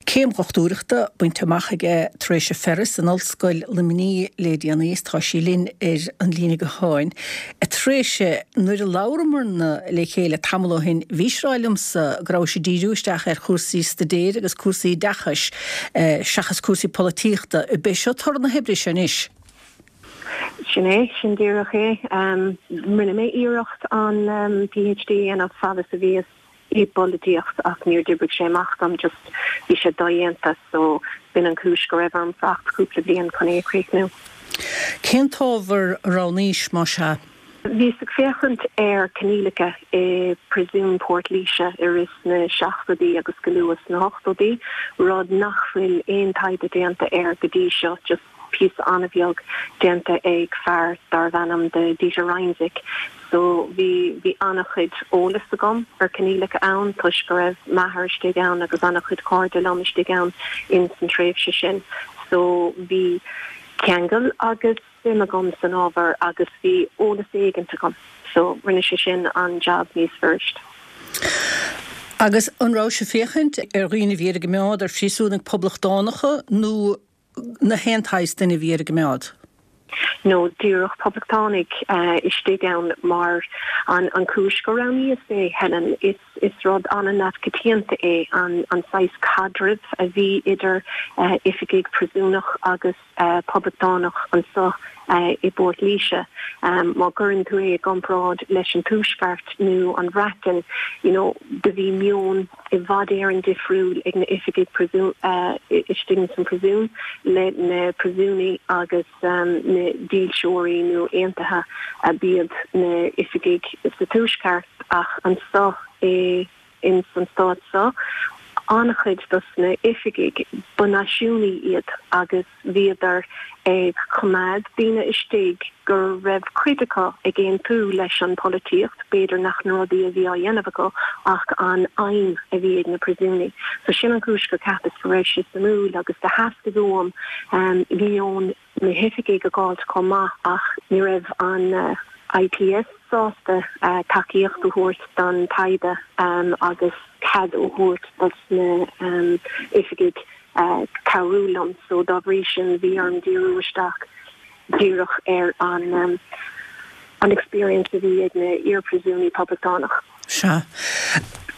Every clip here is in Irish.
Céim dhochtúireachta bainte amach aige Treasa Ferris in Ollscoil Luimnigh le déanaí is tá sí linn ar an líne gutháin. A Threasa, nuair a labhramarna le chéile tamall ó shin bhís ag rá liomsa go rabhais ag díriú isteach ar chúrsaí staidéir agus cúrsaí oideachais seachas cúrsaí polaitíochta. Ab é seo toradh na hoibre seo anois? Sin é, sin díreach é. Rinne mé iarracht an PhD a dhéanamh fad is a bhíos i bpolaitíocht ach níor d'oibrigh sé amach dom, just bhí sé dodhéanta so b'in an chúis go raibh orm fanacht cúpla bliain chun é a chríochnú. Cén t-ábhar a roghnaís, más ea? Bhíos ag féachaint ar coinníollacha i bPríosún Port Laoise i rith na seachtóidí agus go luath sna hochtóidí, rud nach bhfuil aon taighde déanta air go dtí seo, just píosa an-bheag déanta ag fear darbh ainm do Dieter Reinzich. So bhí, bhí an-chuid eolas agam ar coinníollacha ann toisc go raibh m'athair istigh ann agus an-chuid cairde liom istigh ann ins an tréimhse sin. So bhí ceangal agus suim agam san ábhar agus bhí eolas éigint agam. So rinne sé sin an jab níos fuirist. Agus an rabhais ag féachaint ar dhaoine a bhí ar a gcoimeád, ar phríosúnaigh poblachtánacha nó na haon tsaghas duine a bhí ar a gcoimeád. No, díreach poblachtánaigh istigh ann mar an chúis gur roghnaíos é, Helen, is is rud an-neamhchoitianta é an an saghas caidrimh a bhí idir oifigigh príosúnach agus poblachtánach anso i bPort Laoise. Má chuireann tú é i gcomparáid leis an Tuaisceart nó an Bhreatain, you know, do bhí meon i bhfad Éireann difriúil ag na oifigigh istigh ins an príosún le na príosúnaigh agus na dílseoirí nó aontaithe a b'iad na oifigigh sa tuaisceart ach anso i ins an stát so an-chuid dos na oifigigh ba náisiúnaigh iad agus Bhíodar ag coimeád daoine istigh go raibh cuid acu ag aontú leis an polaitíocht, b'fhéidir nach na rudaí a bhí á dhéanamh acu ach an aidhm a bhí ag na príosúnaigh. So sin an chúis gur cheapas go raibh sé suimiúil agus do theastaigh uaim meon na hoifigigh a dh'fháilt chomh maith ach ní raibh an IPS sásta tacaíocht a thabhairt don taighde agus cead a thabhairt dos na oifigigh cabhrú liom so dá bhrí sin bhí orm díriú isteach díreach ar an an experience a bhí ag na iar-phríosúnaigh poblachtánach. Sea.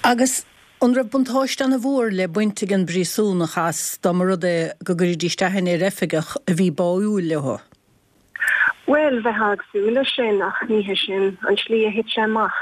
Agus an raibh buntáiste ana mhór le baint ag an bpríosúnach as dá mba rud é go gcuiridís aithne ar oifigeach a bhí báúil leo? Bhuel, bheifeá ag súil leis sin, ach ní hé sin an tslí a thit sé amach.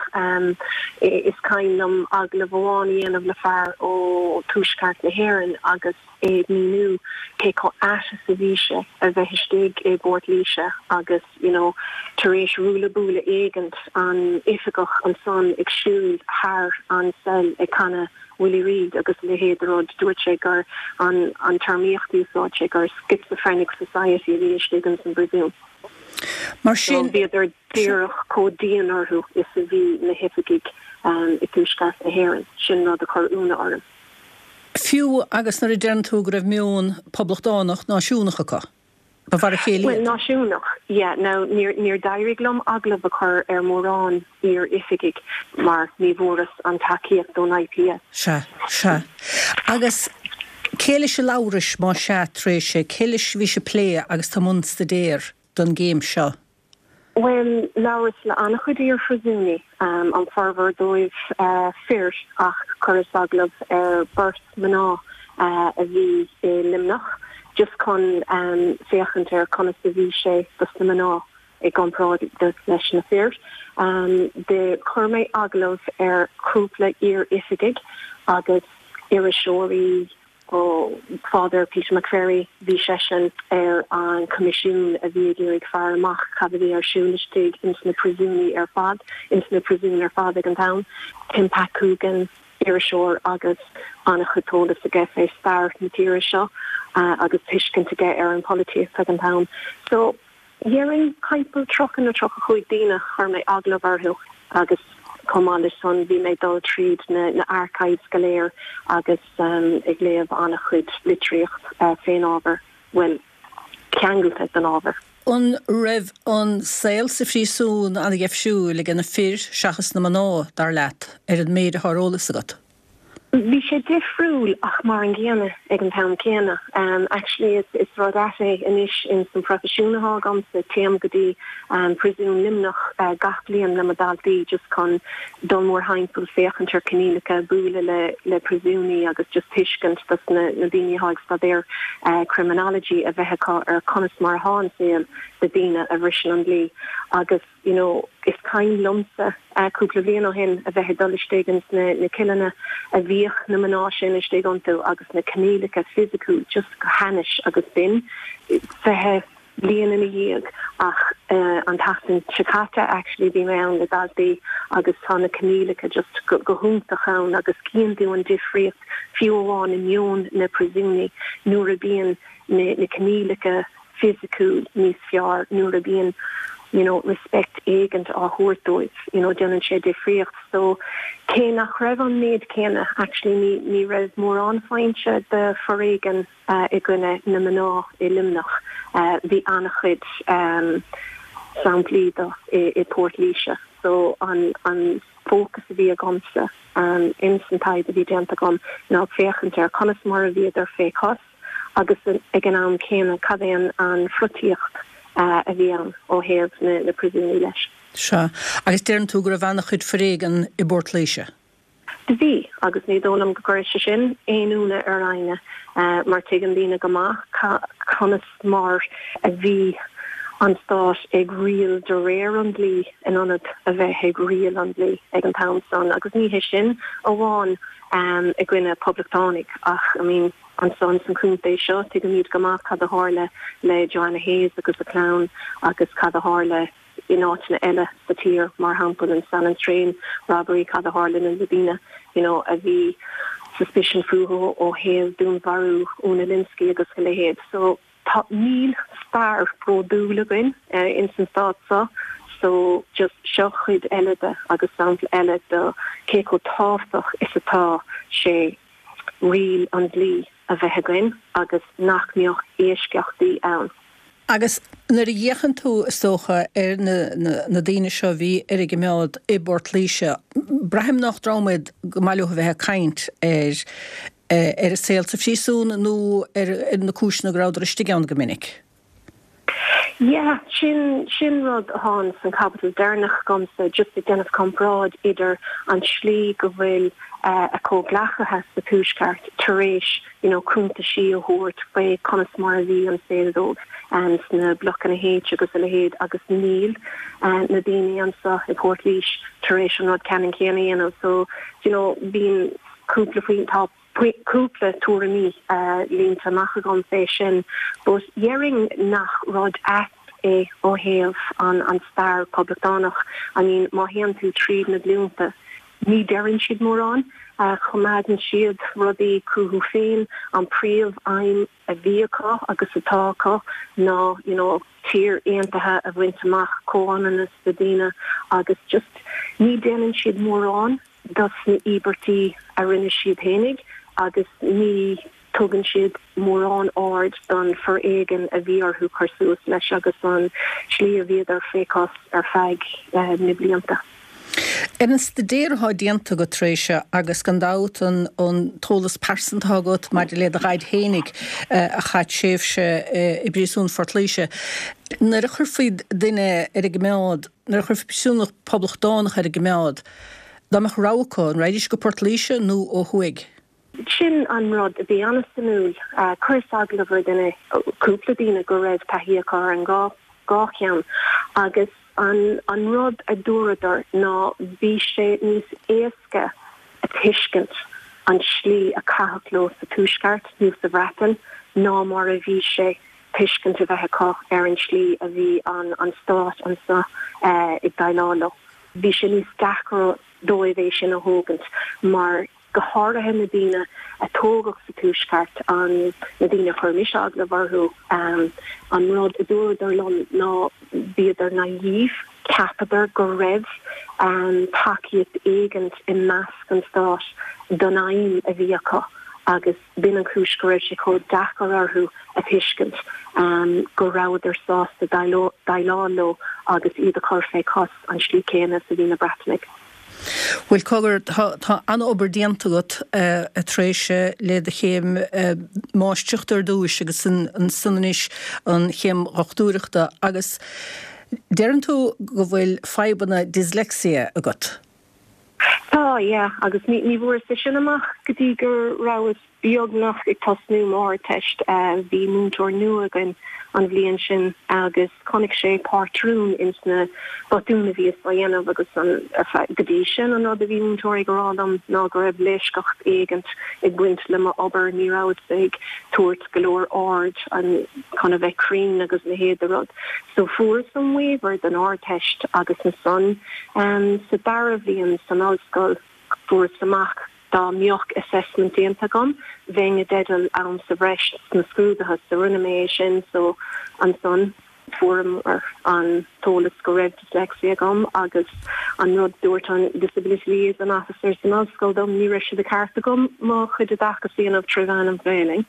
Is cuimhin liom agallamh amháin a dhéanamh le fear ó Tuaisceart na hÉireann agus é ag míniú cé chomh ait is a bhí sé a bheith istigh i bPort Laoise agus, you know, tar éis ruaille buaille éigint, an oifigeach ansan ag siúl thar an cell ag canadh Willie Reid agus a leithéid de rud, dúirt sé gur an an téarmaíocht a úsáid sé gur schizophrenic society a bhí istigh ins an bpríosún. Mar sin. So bhíodar díreach chomh dian orthu is a bhí na hoifigigh i dTuaisceart na hÉireann. Sin rud a chuir ionadh orm. Fiú agus nuair a deireann tú go raibh meon poblachtánach náisiúnach acu. Ba mhar a chéile Bhuel, iad. náisiúnach, yeah. Now, níor, níor d'éirigh liom agallamh a chur ar mhórán iar-oifigigh mar ní bhfuaireas an tacaíocht ón IPS. Sea, sea. Agus cé leis a labhrais, más ea, Treasa, cé leis a bhís ag plé agus tú i mbun staidéir don gcéim seo? Bhuel, labhras le an-chuid iar-phríosúnaigh, an formhór dóibh fir, ach chuireas agallamh ar beirt mná a bhí i Luimneach, just chun féachaint ar conas a bhí sé dos na mná i gcomparáid leis na fir. Do chuir mé agallamh ar chúpla iar-oifigigh agus iriseoirí, Ó Father Peter McVerry, bhí seisean ar an choimisiún a bhí ag iarraidh faire amach cad a bhí ar siúl istigh ins na príosúnaí ar fad, ins na príosúin ar fad ag an t-am. Tim Pat Coogan, iriseoir agus an-chuid eolas aige fé stair na tíre seo agus tuiscint aige ar an pholaitíocht ag an t-am. So. Dhéarfainn timpeall 30 nó 35 daoine chuir mé agallamh orthu agus chomh maith leis san bhí mé ag dul tríd na archives go léir agus ag léamh an-chuid litríocht fén ábhar, bhuel, ceangailte den ábhar. An raibh an saol sa phríosún an-dheifriúil ag na fir seachas na mná, dar leat, ar an méid atá ar eolas agat? Bhí sé difriúil ach mar an gcéanna ag an t-am céanna. Actually is is rud ait é anois ins an proifisiún atá agamsa, téim go dtí Príosún Luimneach gach bliain le mo daltaí just chun dul mórthimpeall, féachaint ar coinníollacha, bualadh le le príosúnaigh agus just tuiscint dos na na daoine atá ag staidéar criminology a bheith acu ar conas mar atá an saol do daoine a bhriseann an dlí agus you know is cuimhin liomsa cúpla bliain ó shin a bheith ag dul istigh ins na na cilleanna a bhíodh na mná sin istigh iontu agus na coinníollacha fisiciúil just go hainnis agus b'in 20 bliain ina dhiaidh ach an tseachtain seo caite actually bhí mé ann le daltaí agus tá na coinníollacha just go go hiontach ann agus cíonn tú an difríocht fiú amháin i meon na príosúnaigh nuair a bíonn na na coinníollacha fisiciúil níos fearr nuair a bíonn you know respect éigint á thabhairt dóibh you know déanann sé difríocht so cé nach raibh an méid céanna actually ní ní raibh mórán foinse de foréigean i gcoinne na mná i Luimneach bhí an-chuid samplaí de i i Port Laoise so an an fócas a bhí agamsa ins an taighde a bhí déanta agam ná féachaint ar conas mar a bhíodar fé chos agus ag an am céanna cad é an pholaitíocht a bhí ann ó thaobh na príosúnaigh leis. Sea. Agus deireann tú go raibh an-chuid foréigean i bPort Laoise. Do bhí, agus ní dóigh liom go gcuirfidh sé sin aon ionadh ar éinne mar tuigeann daoine go maith conas mar a bhí an stát ag riail de réir an dlí in ionad a bheith ag riail an dlí ag an t-am san agus ní hé sin amháin i gcoinne poblachtánaigh ach I mean ansan san chontae seo tuigimid go maith cad a tharla le Joanna Hayes agus a clann agus cad a tharla in áiteanna eile sa tír mar shampla an Sallins Train robbery cad a tharla na daoine you know a bhí suspicion fúthu ó thaobh dúnmharú Úna Lynskey agus a leithéid so Tá, níl stair bródúil againn ins an stát seo so just seo cuid eile de agus sampla eile de cé chomh tábhachtach is atá sé riail an dlí a bheith againn agus nach mbeadh eisceachtaí ann. Agus nuair a fhéachann tú, is dócha, ar na daoine seo a bhí ar a gcoimeád i bPort Laoise, braithim nach dream iad go maith leo a bheith ag caint ar ar a saol sa phríosún nó ar na cúiseanna go rabhadar istigh ann go minic. Yeah, sin, sin rud atá ins an chaibidil deireanach agamsa, just ag déanamh comparáid idir an tslí go bhfuil a comhghleacaithe sa Tuaisceart tar éis, you know, cuntaisí a thabhairt faoi conas mar a bhí an saol dóibh sna blocanna H agus a leithéid agus níl na daoine anseo i bPort Laoise tar éis an rud ceannann céanna a dhéanamh. So, you know, bíonn. cúpla faoin, tá cúpla tuairimí líonta amach agam fé sin but dhéarfainn nach rud ait é ó thaobh an an stair poblachtánach. I mean má théann tú tríd na glúnta ní deireann siad mórán, choimeádann siad rudaí chucu féin, an príomh aidhm a bhí acu agus atá acu ná you know tír aontaithe a bhaint amach, comhionannas do daoine agus just ní déanann siad mórán dos na íobairtí a rinne siad fhéinig agus ní tugann siad mórán aird don foréigean a bhí orthu cur suas leis agus an tslí a bhíodar fé chos ar feadh na blianta. Ar an staidéar atá déanta agat Tréise, agus gan dabht an t-eolas pearsanta atá agat maidir le do dhaid fhéinig a chaith tréimhse i bpríosún Phort Laoise, nuair a chuirfí duine ar an gcoimeád, Nuair a chuirfí príosúnach poblachtánach ar an gcoimeád, dá mbeadh rogha acu, an raghaidís go Port Laoise nó ó thuaidh? Sin an rud a bhí an-suimiúil. Chuireas agallamh ar duine, cúpla daoine go raibh taithí acu ar an dhá cheann agus an rud a dúradar ná bhí sé níos éasca a tuiscint an tslí a caitheadh leo sa Tuaisceart nó sa Bhreatain ná mar a bhí sé tuiscint a bheith acu ar an tslí a bhí an stát anseo ag déileáil leo. Bhí sé níos deacra dóibh é sin a thógaint mar, go háirithe na daoine a tógadh sa Tuaisceart, an, na daoine a chuir mise agallamh orthu, an rud a dúradar liom ná bhíodar naive, cheapadar go raibh tacaíocht éigint i measc an stáit don aidhm a bhí acu agus B'in an chúis go raibh sé chomh deacair orthu a thuiscint go rabhadar sásta déileáil leo agus iad a chur fé chos an slí céanna is a bhí na Breatanaigh. Bhuel, cogar, tá, tá an-obair déanta agat, a Thréise, le do chéim máistreachta ar dtúis agus ansan anois an chéim dhochtúireachta agus deireann tú go bhfuil fadhbanna dyslexia agat. Tá, yeah, agus ní, ní bhfuaireas é sin amach go dtí go rabhas beagnach ag tosnú m'Ardteist. Bhí múinteoir nua againn an bhliain sin agus chonaic sé pátrún ins na botúin a bhíos á dhéanamh agus an, go dtí sin an rud a bhí múinteoirí ag rá liom ná go raibh leisceacht éigint ag baint le m'obair, ní rabhas ag tabhairt go leor aird an, chun a bheith cruinn agus a leithéid de rud. So fuaireas an waiver don Ardteist agus ansan sa dara bhliain san ollscoil fuaireas amach Dá mbeadh assessment déanta agam, bheinn i dteideal am sa bhreis sna scrúduithe, so rinne mé é sin, so ansan fuaireamar an t-eolas go raibh dyslexia agam agus an rud dúirt an disability liaison officer san ollscoil dom, ní raibh sé de cheart agam mo chuid oideachais a dhéanamh tré mheán an Ghaelainn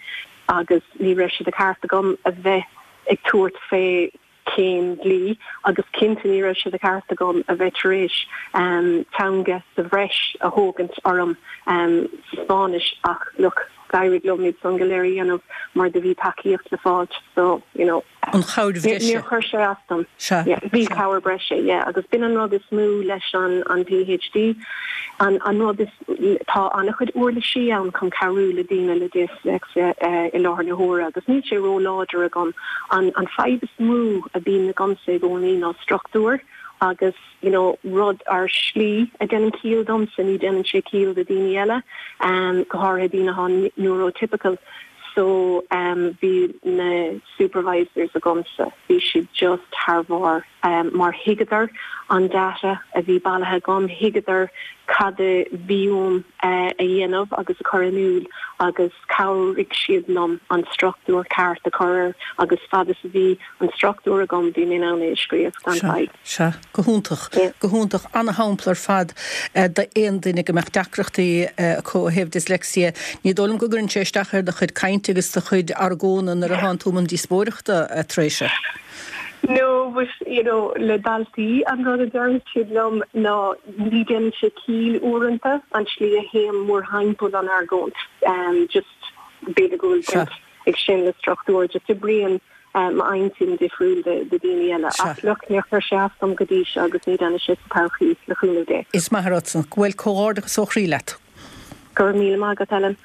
agus ní raibh sé de cheart agam a bheith ag tabhairt fé céim dlí agus cinnte ní raibh sé de cheart agam a bheith tar éis teanga sa bhreis a thógaint orm sa Spáinnis ach look d'éirigh liom iad san go léir a dhéanamh mar do bhí tacaíocht le fáilt so you know An chabhair bhreise. Níor chuir sé as dom. Sea. Yeah bhí cabhair breise yeah agus b'in an rud is mó leis an an PhD an an rud is Tá an-chuid uirlisí ann chun cabhrú le daoine le disléicse i láthair na huaire agus níl sé ró-láidir agam. An fadhb is mó a bhíonn agamsa i gcónaí ná struchtúr agus you know rud ar shlí a dhéanann ciall domsa, ní dhéanann sé ciall do daoine eile, go háirithe daoine atá neurotypical. So bhí na supervisors agamsa, bhí siad just thar bharr. mar thuigeadar an data a bhí bailithe agam, thuigeadar cad a bhí uaim a dhéanamh agus a chur in iúl agus chabhraigh siad liom an struchtúr ceart a chur air agus fad is a bhí an struchtúr agam bhí mé in ann é a scríobh gan fadhb. Sea, go hiontach, go hiontach. Ana-shampla ar fad d'aon duine go mbeadh deacrachtaí acu ó thaobh dyslexia. Ní dóigh liom go gcuireann sé isteach ar do chuid cainte agus do chuid argóna nuair a thánn tú i mbun díospóireachta, a Thréise. No, but, you know, le daltaí, an rud a deireann siad liom ná ní déanann sé ciall uaireanta an tslí a théim mórthimpeall an argóint. Just, b'fhéidir go bhfuil baint ag sin le struchtúr, just oibríonn m'intinn difriúil de daoine eile. Ach look, níor chuir sé as dom go dtí seo agus ní déanfaidh sé sa todhchaí, le cúnamh Dé. Is maith an rud san. Bhuel, comhghairdeachas ó chroí leat. Go raibh míle maith agat, Ellen.